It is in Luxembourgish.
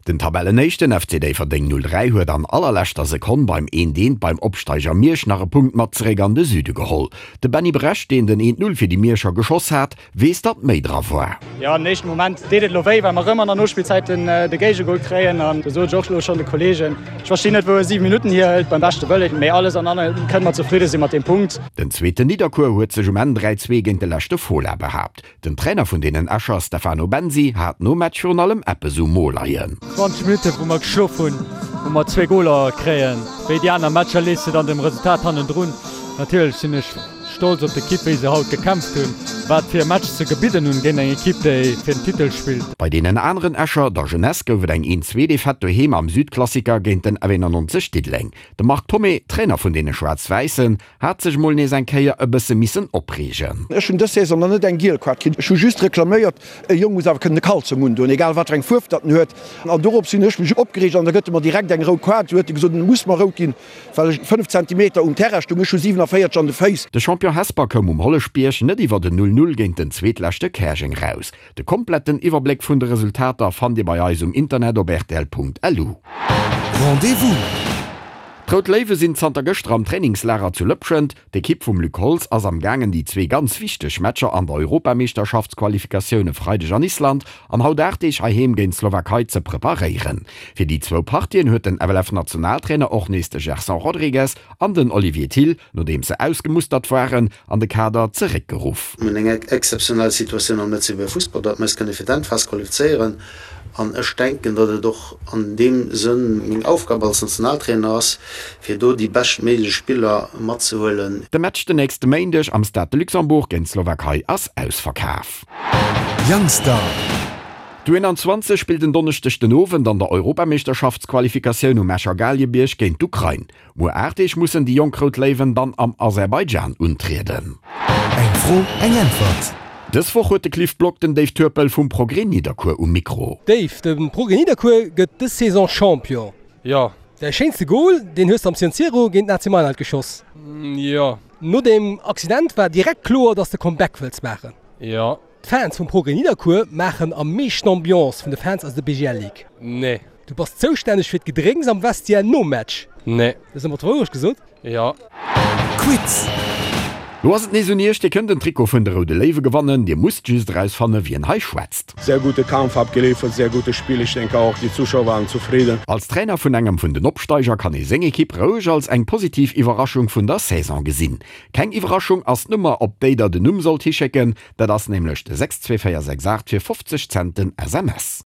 Den Tabellenéischten FC Déifferdeng 03 huet an allerleschter Sekonn beim eent eent beim Opsteiger Miersch nach e Punkt mat zeréck an de Süde geholl. De Benny Brecht, deen den eent Null fir déi Mierscher geschoss hat, weess datt méi dra war. Jo, am éischten Moment deet et elo wéi, well mer rëm an der Nospillzäit den de Géigegol kréien an do sot ech och elo schonn de Kollegen, ech verstinn net wou e 7 Minutten hierhëlt, beim beschte Wëllen, mee alles an allem kënne mer zefridde si mat deem Punkt. Den zweeten Nidderkuer huet sech um Enn 3, 2 géint de leschte Fola behaapt. Den Trainer vun deenen Escher, Stefano Bensi, hat nom Match virun allem eppes um Mo leien. 20 Minutten wou mer geschlof hunn, wou mer zwee Goler kréien. Wéi déi aner Matcher lees de dann dem Resultat hannendrun. Natierlech sinn ech stolz op d'Ekipp wéi se haut gekämpft hunn, wat fir e Match se gebidden hunn géint eng Ekipp déi fir den Titel spillt. Bei deenen aneren Escher, der Jeunesse, gouf et eng 1, 2 Defaite doheem am Südklassiker géint den F91 Diddeleng. De Marc Thomé, Trainer vun deene Schwaarz-Wäissen, Hat sech mol nees eng Kéier e bësse missen opreegen. Ech hunn dës Saison nach net eng giel Kaart kritt. Ech hu just reklaméiert, e Jong muss awer kënnen e Kalzong undoen, egal wat fir eng Fuerf datt en huet. An dorops hunn ech mech opgereegt an da gëtt e mer direkt eng rout Kaart. Du huet e gesot, en muss mer rout ginn, well ech 5 Zentimeter um Terrain stoung. Ech hu 47 an de Féiss. De Champion Hesper koum um Holleschbierg net iwwert en 0, 0 géint den Zweetleschte Käerjeng raus. De kompletten Iwwerbléck vun de Resultater fannt Dir bei eis um Internet op rtl.lu. Rendez-vous! D'Rout Léiwe sinn zanter gëschter am Trainingslager zu Lëpschent. D'Ekipp vum Luc Holtz ass am gaangen déi zwee ganz wichteg Matcher an der Europameeschterschaftsqualifikatioun e Freideg an Island an haut 8 Deeg heiheem géint d'Slowakei ze preparéieren. Fir déi zwou Partien huet den FLF-Nationaltrainer och nees de Gerson Rodrigues an den Olivier Thill, nodeems se ausgemustert waren, an de Kader zeréckgeruff. Mir hunn eng exzeptionell Situatioun am Lëtzebuerger Fussball, datt mir eis kënne fir d'Endphas qualifizéieren. An ech denken, datt et och an deem Sënn meng Aufgab als Nationaltrainer ass, fir do déi beschtméiglech Spiller matzehuelen. De Match den nächste Méindeg am Stade de Luxembourg géint d'Slowakei ass ausverkaf. Youngstar. D'U21 spillt en Donneschdeg den Owend an der Europameeschterschaftsqualifikatioun um Escher Galiebierg géint d'Ukrain. Muer 8 Deeg mussen déi jonk Rout Léiwen dann am Aserbaidschan untrieden. Eng Fro, eng Äntwert. Dës Woch huet de Cliff Block den Dave Turpel vum Progrès Nidderkuer um Mikro. Dave, de Progrès Nidderkuer gëtt dës Saison Champion. Jo. Däi schéinste Gol, deen hues de am San Siro géint den AC Mailand geschoss. Jo. No dem Accident war direkt kloer, dass de Comeback wëlls maachen. Jo. D'Fans vum Progrès Nidderkuer maachen am meeschten Ambiance vun de Fans aus der BGL Ligue. Nee. Du bass zoustänneg fir d'Gedrénks am Vestiaire nom Match. Nee. Hues de mer d'Wourecht gesot? Jo. Quiz! Lo ass et nees un iech, Dir kënnt en Trikot vun de Roude Léiwe gewannen. Dir musst just erausfanne wien hei schwätzt. Sehr gute Kampf abgeliefert, sehr gutes Spiel, ich denke auch die Zuschauer waren zufrieden. Als Trainer vun engem vun den Opsteiger kann ee seng Ekipp roueg als eng positiv Iwwerraschung vun der Saison gesinn. Keng Iwwerraschung ass d'Nummer op déi der den Numm sollt hischécken, dat ass nämlech de 62468 fir 50 Cent den SMS.